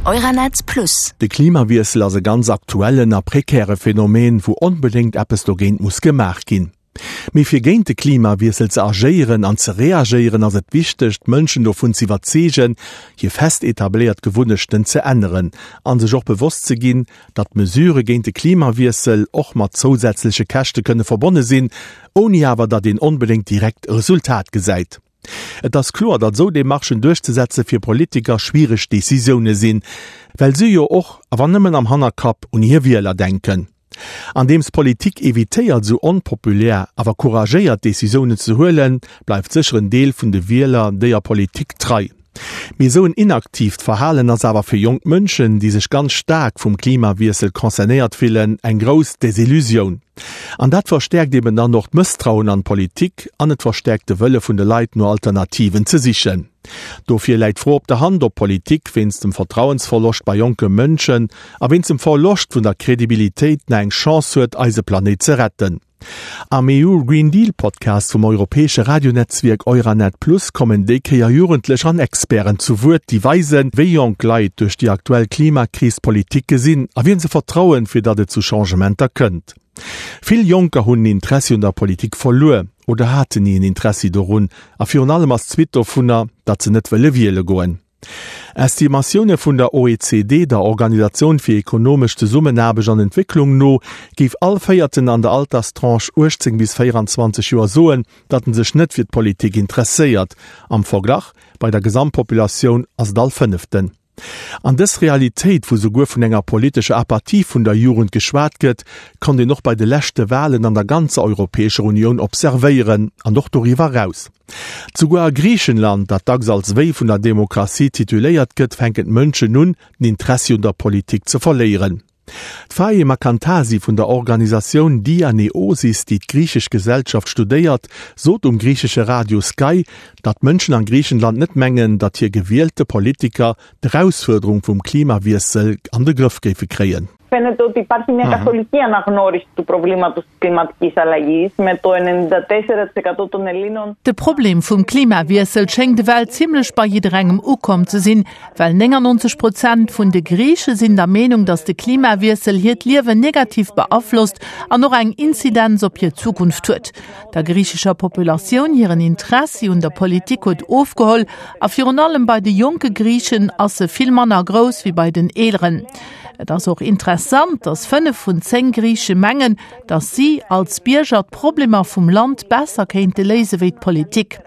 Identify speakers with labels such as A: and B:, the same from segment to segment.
A: Euranet Plus.
B: De Klimawiessel ass e ganz aktuellen a prekäre Phänomen, wou onbedéngt eppes dogéint muss gemaach ginn. Mee fir géint de Klimawiessel ze agéieren an ze reagéieren, ass et wichteg, d'Mënschen dovun z'iwwerzeegen, hir fest etabléiert Gewunnechten ze änneren an sech och bewosst ze ginn, datt Mesurë géint de Klimawiessel och mat zousätzleche Käschte kënne verbonne sinn, ouni awer datt een onbedéngt direkt e Resultat gesäit. Et ass kloer, datt esou Demarchen duerchzesetze fir Politiker schwiereg Decisioune sinn, well si jo och, a wann nëmmen am Hannerkapp, un hir Wieler denken. Andeems d'Politik evitéiert esou onpopulär, awer couragéiert Decisiounen ze huelen, bleift sécher en Deel vun de Wieler déier Politik trei. Mee esou en inaktiivt Verhalen ass awer fir jonk Mënschen, déi sech ganz staark vum Klimawiessel concernéiert fillen, eng grouss Desillusioun. An dat verstäerkt eben dann och d'Mësstrauen an d'Politik an et verstäerkt de Wëlle vun de Leit no Alternativen ze sichen. Dofir läit d'Fro op der Hand, ob d'Politik wéinst dem Vertrauensverloscht bei jonke Mënschen a wéinst dem Verloscht vun der Kredibilitéit nach eng Chance huet, eise Planéit ze retten. Am EU Green Deal Podcast vum europäesche Radionetzwierk Euranet Plus kommen déi Kéier Jugendlech an Experten zu Wuert, déi weisen, wéi jonk Leit duerch déi aktuell Klimakris d'Politik gesinn a wien se vertrauen, fir datt et zu Changementer kënnt. Vill Jonker hunn den Interessi un der Politik verluer oder haten ni en Interessi dorun a virun allem ass d'Suite dovunner, datt se net wëlle wiele goen. Estimatioune vun der OECD, der Organisatioun fir ekonomesch Zesummenaarbecht an Entwécklung, no géif all Véierten an der Alterstranche 18 bis 24 Joer soen, datt en sech net fir d'Politik interesséiert. Am Verglach, bei der Gesamtpopulatioun ass et all Fënneften. An dës Realitéit, wou souguer vun enger politescher Apathie vun der Jugend geschwat gëtt, konnt een och bei de leschte Walen an der ganzer Europäescher Unioun observéieren an och doriwwer eraus. Souguer a Griichenland, dat dacks als Wéi vun der Demokratie tituléiert gëtt, fänken d'Mënschen un, den Interessi un der Politik ze verléieren. D'Faema Kantasi vun der Organisatioun Dianeosis, déi d'griichesch Gesellschaft studéiert, sot um griichesche Radio Skai, datt d'Mënschen a Griichenland net mengen, datt hir gewielte Politiker d'Erausfuerderung vum Klimawiessel an de Grëff géife kréien.
C: Φαίνεται ότι υπάρχει μια καθολική αναγνώριση του προβλήματος της κλιματικής αλλαγής με το 94% των Ελλήνων.
D: De Problem vum Klimawiessel schéngt ewell zimmlech bei jidderengem ukomm ze sinn, well 99 Prozent vun de Griiche sinn der Meenung, datt de Klimawiessel hiert Liewen negativ beaflosst an och eng Inzidenz op hir Zukunft huet. Der griichescher Populatioun hiren Interessi un der Politik huet ofgeholl a virun allem bei de jonke Griichen ass e vill manner grouss wéi bei den eeleren. Et ass och interessant, datt 5 vun 10 Griiche mengen, datt si als Bierger d'Problemer vum Land besser kéinte léise wéi d'Politik.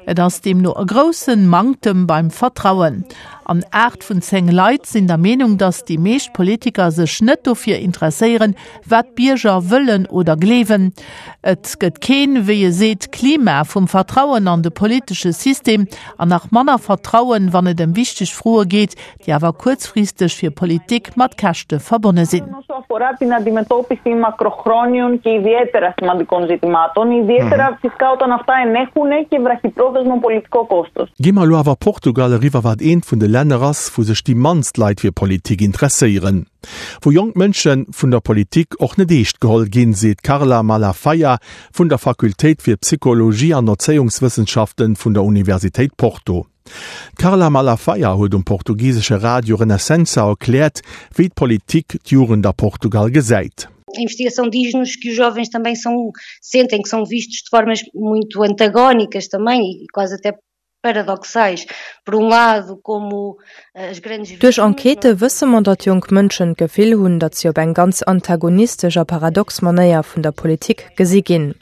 D: Et ass deemno e groussen Manktem beim Vertrauen. An 8 vun 10 Leit sinn der Meenung, datt déi meescht Politiker sech net dofir interesséieren, wat d'Bierger wëllen oder gleewen. Et gëtt keen, wéi e seet, Klima vum Vertrauen an de politesche System an nach manner Vertrauen, wann et ëm wichteg Froe geet, déi awer kuerzfristeg fir Politik mat Käschte verbonne sinn.
B: Gi mer elo awer Portugal eriwwer, wat eent vun de Länner ass, wou sech déi mannst Leit fir Politik interesséieren. Wou jonk Mënsche vun der Politik och net eescht geholl ginn, seet d'Carla Malafaia vun der Fakultéit fir Psychologie an Erzéiungswëssenschaften vun der Universitéit Porto. D'Carla Malafaia huet um portugisesche Radio Renascença erkläert, wéi d'Politik d'Jugend a Portugal gesäit.
E: A investigação diz-nos que os jovens também são, sentem que são vistos de formas muito antagónicas também e quase até paradoxais. Por um lado, como as grandes
F: Duerch Enquêtë wësse mer, datt jonk Mënschen d'Gefill hunn, datt si op eng ganz antagonistesch a paradox Manéier vun der Politik gesi ginn.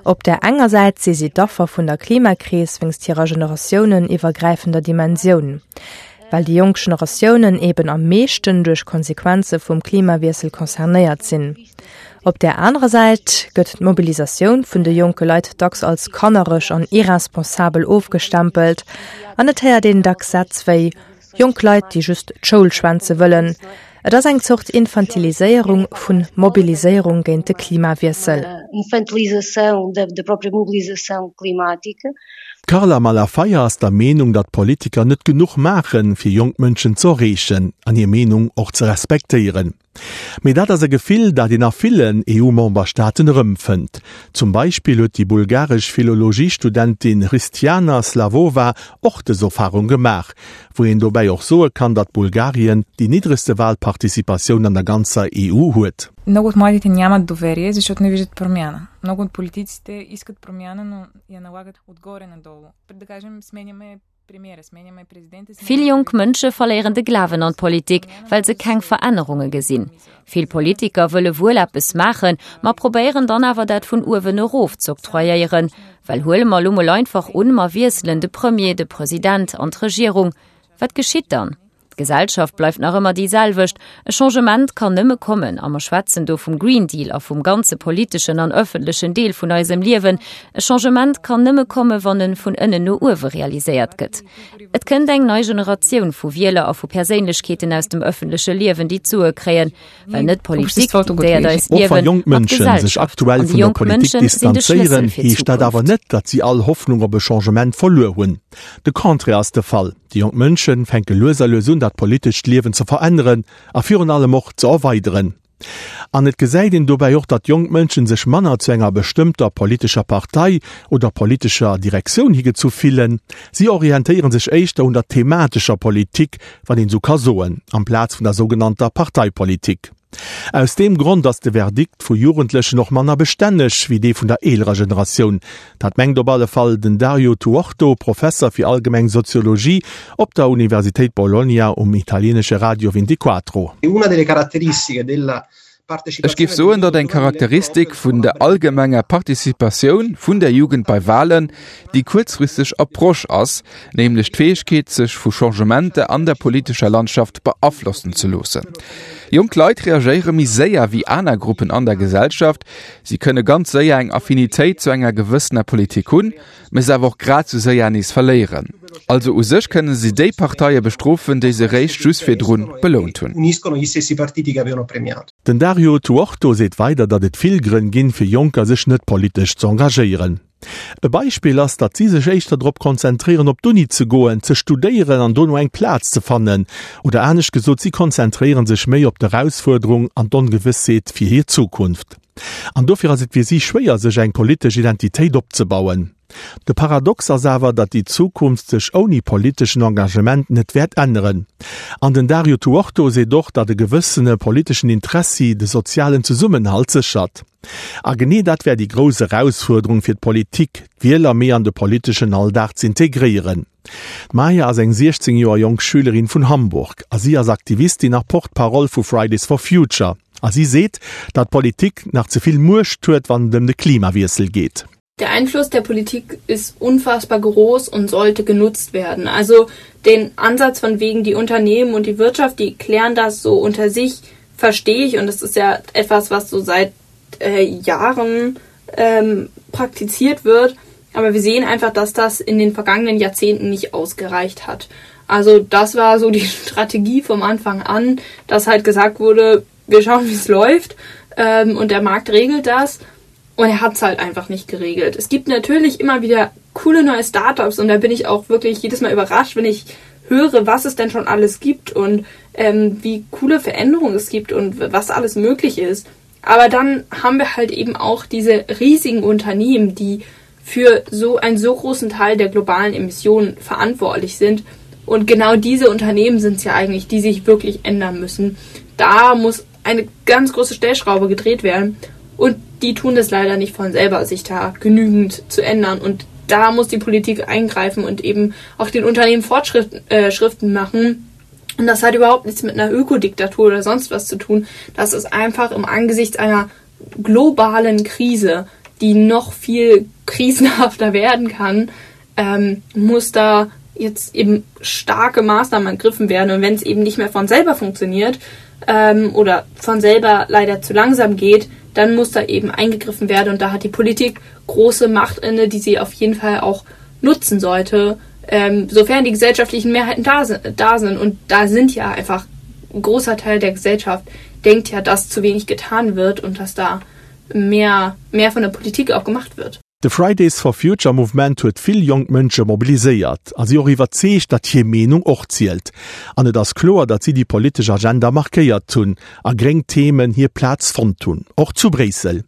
F: Op där enger Säit si si d'Affer vun der Klimakris wéinst hirer generatiouneniwwergräifender Dimensioun, well déi jonk Generatiounen eben am meeschten duerch Konsequenze vum Klimawiessel concernéiert sinn. Op där anerer Säit gëtt d'Mobilisatioun vun de jonke Leit dacks als kannereg an irresponsabel ofgestempelt an et héiert een dacks Sätz wéi, Jonk Leit, déi just d'Schoul schwänze wëllen. Et ass eng Zort Infantiliséierung vun Mobiliséierung géint de Klimawiessel.
E: Infantilização da própria mobilização climática.
B: D'Carla Malafaia ass der Meenung, datt d'Politiker net genuch maachen, fir jonk Mënschen z'erreechen an hir Meenung och ze respektéieren. Mee dat ass e Gefill, dat een a villen EU-Memberstaaten erëmfënnt. Zum Beispill huet déi bulgaresch Philologiestudentin Hristiana Slavova och dës Erfarung gemaach, wou een dobäi och soe kann, datt Bulgarien déi niddregste Walparticipatioun an der ganzer EU huet.
A: Много от младите нямат доверие, защото не виждат промяна. Много от политиците искат промяна, но я налагат отгоре надолу. Да кажем, сменяме
G: Vill jonk Mënsche verléieren de Glawen an d'Politik, well se keng Verännerunge gesinn. Vill Politiker wëlle wuel eppes maachen, ma probéieren dann awer dat vun uewen erof z'octroyéieren. Well huele mer elo mol einfach un, mer wiesselen de Premier, de President an d'Regierung. Wat geschitt dann? D'Gesellschaft bleift nach ëmmer déi selwecht. E Changement kann nëmme kommen, a mer schwätzen do vum Green Deal a vum ganze politeschen an ëffentlechen Deel vun eisem Liewen, e Changement kann nëmme komme wann en vun ënnen no uewe realiséiert gëtt. Et kënnt eng nei Generatioun vu Wieler a vu Perséinlechkeeten aus dem ëffentleche Liewen, déi d'Sue kréien, well net d'Politik diktéiert eist
B: Och wa
G: Liewen,
B: jonk
G: ma
B: Mënsche sech
G: d'Gesellschaft.
B: aktuell
G: An déi
B: vun der
G: jonk
B: Politik
G: Mënsche sinn de Schlëssel
B: distanzéieren,
G: fir
B: heescht dat awer
G: d'Zukunft.
B: net, datt si all Hoffnung op e Changement verluer hunn. De Contraire ass de Fall. Déi jonk Mënsche fänke lues a lues un, dat politescht Liewen ze veränneren a virun allem och ze erweideren. An et gesäit een dobäi och, datt jonk Mënschen sech manner zu enger bestëmmter politescher Partei oder politescher Direktioun higezu fillen. Si orientéiere sech éischter un der thematescher Politik, wann een esou ka soen, amplaz vun der sougenannter Parteipolitik. Aus deem Grond ass de Verdikt vu Jugendlechen och manner bestänneg wéi dee vun der eelerer Generatioun. Dat mengt op alle Fall den Dario Tuorto, Professer fir allgemeng Soziologie op der Universitéit Bologna um italieenesche Radio Ventiquattro.
H: Una delle caratteristiche della
I: Ech géif soen, datt eng Charakteristik vun der allgemenger Participatioun vun der Jugend bei Wahlen déi kuerzfristeg Approche ass, nämlech d'Fäegkeet, sech vu Changementer an der politescher Landschaft beaflossen ze loossen. Jonk Leit reagéiere méi séier wéi aner Gruppen an der Gesellschaft. Si kënne ganz séier eng Affinitéit zu enger gewëssener Politik hunn, mä se awer och grad sou séier nees verléieren. Also u sech kënne si déi Parteie bestrofen, déi se réischt just virdrun belount hunn.
B: Den Dario Tuorto seet weider, datt et vill Grënn ginn, fir Jonker sech net politesch z'engagéieren. E Beispill ass, datt si sech éischter drop konzentréieren op d'Uni ze goen, ze studéieren an dono eng Plaz ze fannen. Oder anescht gesot, si konzentréiere sech méi op d'Erausfuerderung an d'Ongewëssheet fir hir Zukunft. An dofir ass et fir si schwéier sech eng politesch Identitéit opzebauen. De Paradox ass awer, datt déi Zukunft sech ouni politeschen Engagement net wäert änneren. An den Dario Tuorto seet och, datt e gewëssene politeschen Interessi de sozialen Zesummenhalt séchert. A genee dat wär déi grouss Erausfuerderung fir d'Politik, d'Wieler méi an de politeschen Alldag z'integréieren. D'Maja ass eng 16 Joer jonk Schülerin vun Hamburg a si ass Aktivistin a Porte-parole vu Fridays for Future. A si seet, datt d'Politik nach ze vill Muecht huet, wann et ëm de Klimawiessel geet.
J: Der Einfluss der Politik ist unfassbar groß und sollte genutzt werden. Also den Ansatz von wegen die Unternehmen und die Wirtschaft, die klären das so unter sich, verstehe ich und das ist ja etwas, was so seit äh, Jahren ähm, praktiziert wird. Aber wir sehen einfach, dass das in den vergangenen Jahrzehnten nicht ausgereicht hat. Also das war so die Strategie vom Anfang an, dass halt gesagt wurde, wir schauen, wie es läuft ähm, und der Markt regelt das. Und er hat es halt einfach nicht geregelt. Es gibt natürlich immer wieder coole neue Startups und da bin ich auch wirklich jedes Mal überrascht, wenn ich höre, was es denn schon alles gibt und ähm, wie coole Veränderungen es gibt und was alles möglich ist. Aber dann haben wir halt eben auch diese riesigen Unternehmen, die für so einen so großen Teil der globalen Emissionen verantwortlich sind. Und genau diese Unternehmen sind es ja eigentlich, die sich wirklich ändern müssen. Da muss eine ganz große Stellschraube gedreht werden. Und die tun das leider nicht von selber, sich da genügend zu ändern. Und da muss die Politik eingreifen und eben auch den Unternehmen Fortschriften äh, Schriften machen. Und das hat überhaupt nichts mit einer Ökodiktatur oder sonst was zu tun. Das ist einfach im Angesicht einer globalen Krise, die noch viel krisenhafter werden kann, ähm, muss da jetzt eben starke Maßnahmen ergriffen werden. Und wenn es eben nicht mehr von selber funktioniert ähm, oder von selber leider zu langsam geht, dann muss da eben eingegriffen werden. Und da hat die Politik große Macht inne, die sie auf jeden Fall auch nutzen sollte, ähm, sofern die gesellschaftlichen Mehrheiten da, da sind. Und da sind ja einfach ein großer Teil der Gesellschaft denkt ja, dass zu wenig getan wird und dass da mehr, mehr von der Politik auch gemacht wird.
B: De Fridays for Future Mouvement huet vill jonk Mënsche mobiliséiert a si och iwwerzeegt, datt hir Meenung och zielt. An et ass kloer, datt si déi politesch Agenda markéiert hunn a gréng Themen hir Plaz fonnt hunn, och zu Bréissel.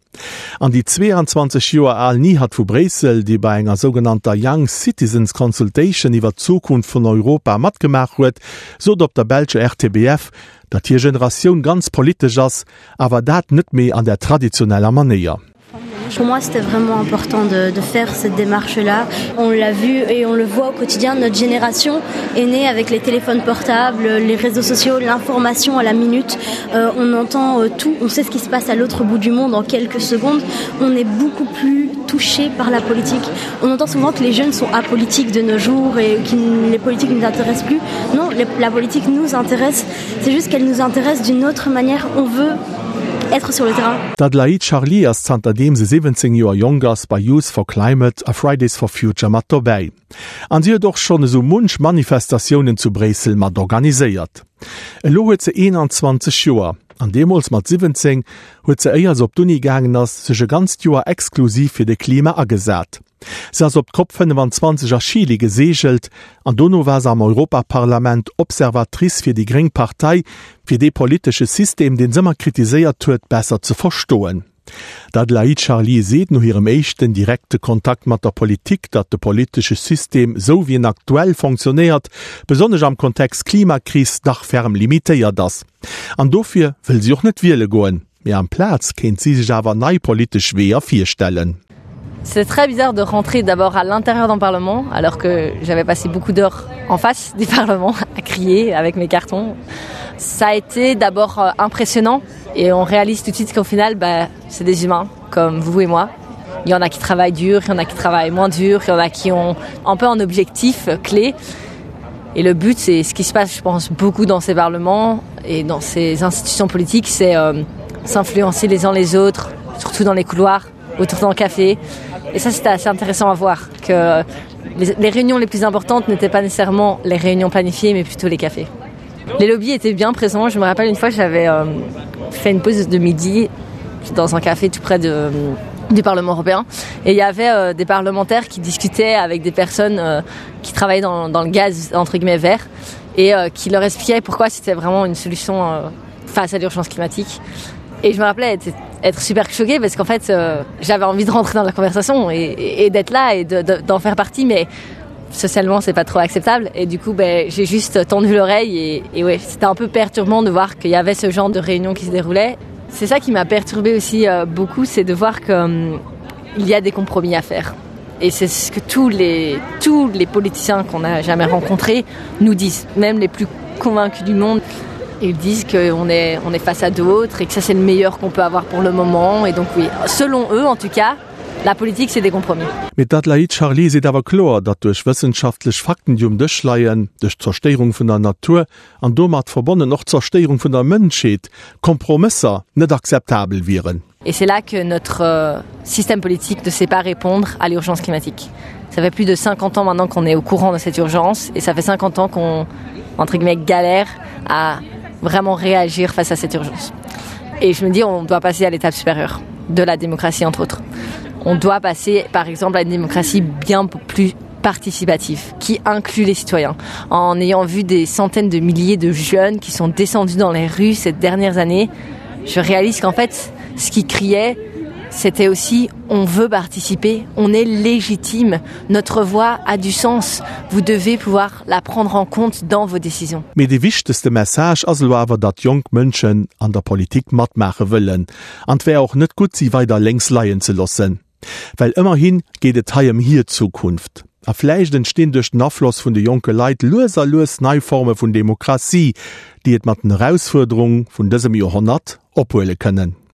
B: An déi 22 Joer al Nihat vu Bréissel, déi bei enger sougenannter Young Citizens Consultation iwwer d'Zukunft vun Europa matgemaach huet, sot op der belscher RTBF, datt hir Generatioun ganz politesch ass, awer dat net méi an der traditioneller Manéier.
K: Pour moi, c'était vraiment important de, de faire cette démarche-là. On l'a vu et on le voit au quotidien, notre génération est née avec les téléphones portables, les réseaux sociaux, l'information à la minute. Euh, on entend euh, tout, on sait ce qui se passe à l'autre bout du monde en quelques secondes. On est beaucoup plus touché par la politique. On entend souvent que les jeunes sont apolitiques de nos jours et que les politiques ne nous intéressent plus. Non, les, la politique nous intéresse, c'est juste qu'elle nous intéresse d'une autre manière. On veut être sur le terrain.
B: D'Adelaïde Charlier ass zanterdeem se 17 Joer jonk ass bei Youth for Climate a Fridays for Future mat dobäi. An si huet och schonn esou munch Manifestatiounen zu Bréissel mat organiséiert. Elo huet se 21 Joer an deemools mat 17 huet se éier se op d'Uni gaangen ass sech e ganzt Joer exklusiv fir de Klima agesat. Se ass op d'Cop 25 a Chile geseegelt an dono war se am Europaparlament Observatrice fir déi gréng Partei, fir dee politesche System, deen s'ëmmer kritiséiert huet, besser ze verstoen. D'Adelaïde Charlier seet no hirem éischten direkte Kontakt mat der Politik, datt de politesche System, sou wéi en aktuell fonctionnéiert, besonnesch am Kontext Klimakris, dach ferm limitéiert ass. An dofir wëll si och net wiele goen. Mee amplaz kéint si sech awer nei politesch Weeër virstellen.
L: C'est très bizarre de rentrer d'abord à l'intérieur d'un parlement alors que j'avais passé beaucoup d'heures en face du parlement à crier avec mes cartons. Ça a été d'abord euh, impressionnant et on réalise tout de suite qu'au final bah, c'est des humains comme vous et moi. Il y en a qui travaillent dur, il y en a qui travaillent moins dur, il y en a qui ont un peu un objectif clé. Et le but c'est ce qui se passe je pense beaucoup dans ces parlements et dans ces institutions politiques, c'est euh, s'influencer les uns les autres, surtout dans les couloirs, autour d'un café. Et ça c'était assez intéressant à voir que les, les réunions les plus importantes n'étaient pas nécessairement les réunions planifiées mais plutôt les cafés. Les lobbies étaient bien présents. Je me rappelle une fois j'avais euh, fait une pause de midi dans un café tout près de, du Parlement européen et il y avait euh, des parlementaires qui discutaient avec des personnes euh, qui travaillaient dans, dans le gaz entre guillemets vert et euh, qui leur expliquaient pourquoi c'était vraiment une solution euh, face à l'urgence climatique. Et je me rappelais être, être super choquée parce qu'en fait euh, j'avais envie de rentrer dans la conversation et, et, et d'être là et d'en de, de, faire partie mais socialement c'est pas trop acceptable et du coup ben j'ai juste tendu l'oreille et, et ouais c'était un peu perturbant de voir qu'il y avait ce genre de réunion qui se déroulait c'est ça qui m'a perturbé aussi euh, beaucoup c'est de voir que hum, il y a des compromis à faire et c'est ce que tous les tous les politiciens qu'on a jamais rencontrés nous disent même les plus convaincus du monde ils disent qu'on est on est face à d'autres et que ça c'est le meilleur qu'on peut avoir pour le moment et donc oui selon eux en tout cas la politique c'est des compromis.
B: Mee d'Adelaïde Charlier seet awer kloer, datt duerch wëssenschaftlech Fakten, déi um Dësch leien, duerch d'Zerstéierung vun der Natur an domat verbonnen och d'Zerstéierung vun der Mënschheet, Kompromësser net akzeptabel wieren.
L: Et c'est là que notre euh, système politique ne sait pas répondre à l'urgence climatique. Ça fait plus de 50 ans maintenant qu'on est au courant de cette urgence et ça fait 50 ans qu'on entre guillemets galère à vraiment réagir face à cette urgence. Et je me dis on doit passer à l'étape supérieure de la démocratie entre autres. On doit passer par exemple à une démocratie bien plus participative qui inclut les citoyens. En ayant vu des centaines de milliers de jeunes qui sont descendus dans les rues ces dernières années, je réalise qu'en fait, ce qui criait, c'était aussi on veut participer, on est légitime, notre voix a du sens, vous devez pouvoir la prendre en compte dans vos décisions.
B: Mee dee wichtegste Message ass elo awer, datt jonk Mënschen an der Politik matmaache wëllen. An 't wär och net gutt, si weider lénks leien ze loossen. Well ëmmerhi geet et hei ëm hir Zukunft. A vläicht entstinn duerch den Afloss vun de jonke Leit lues a lues nei Forme vun Demokratie, déi et mat den Erausfuerderung vun dësem Joerhonnert ophuele kënnen.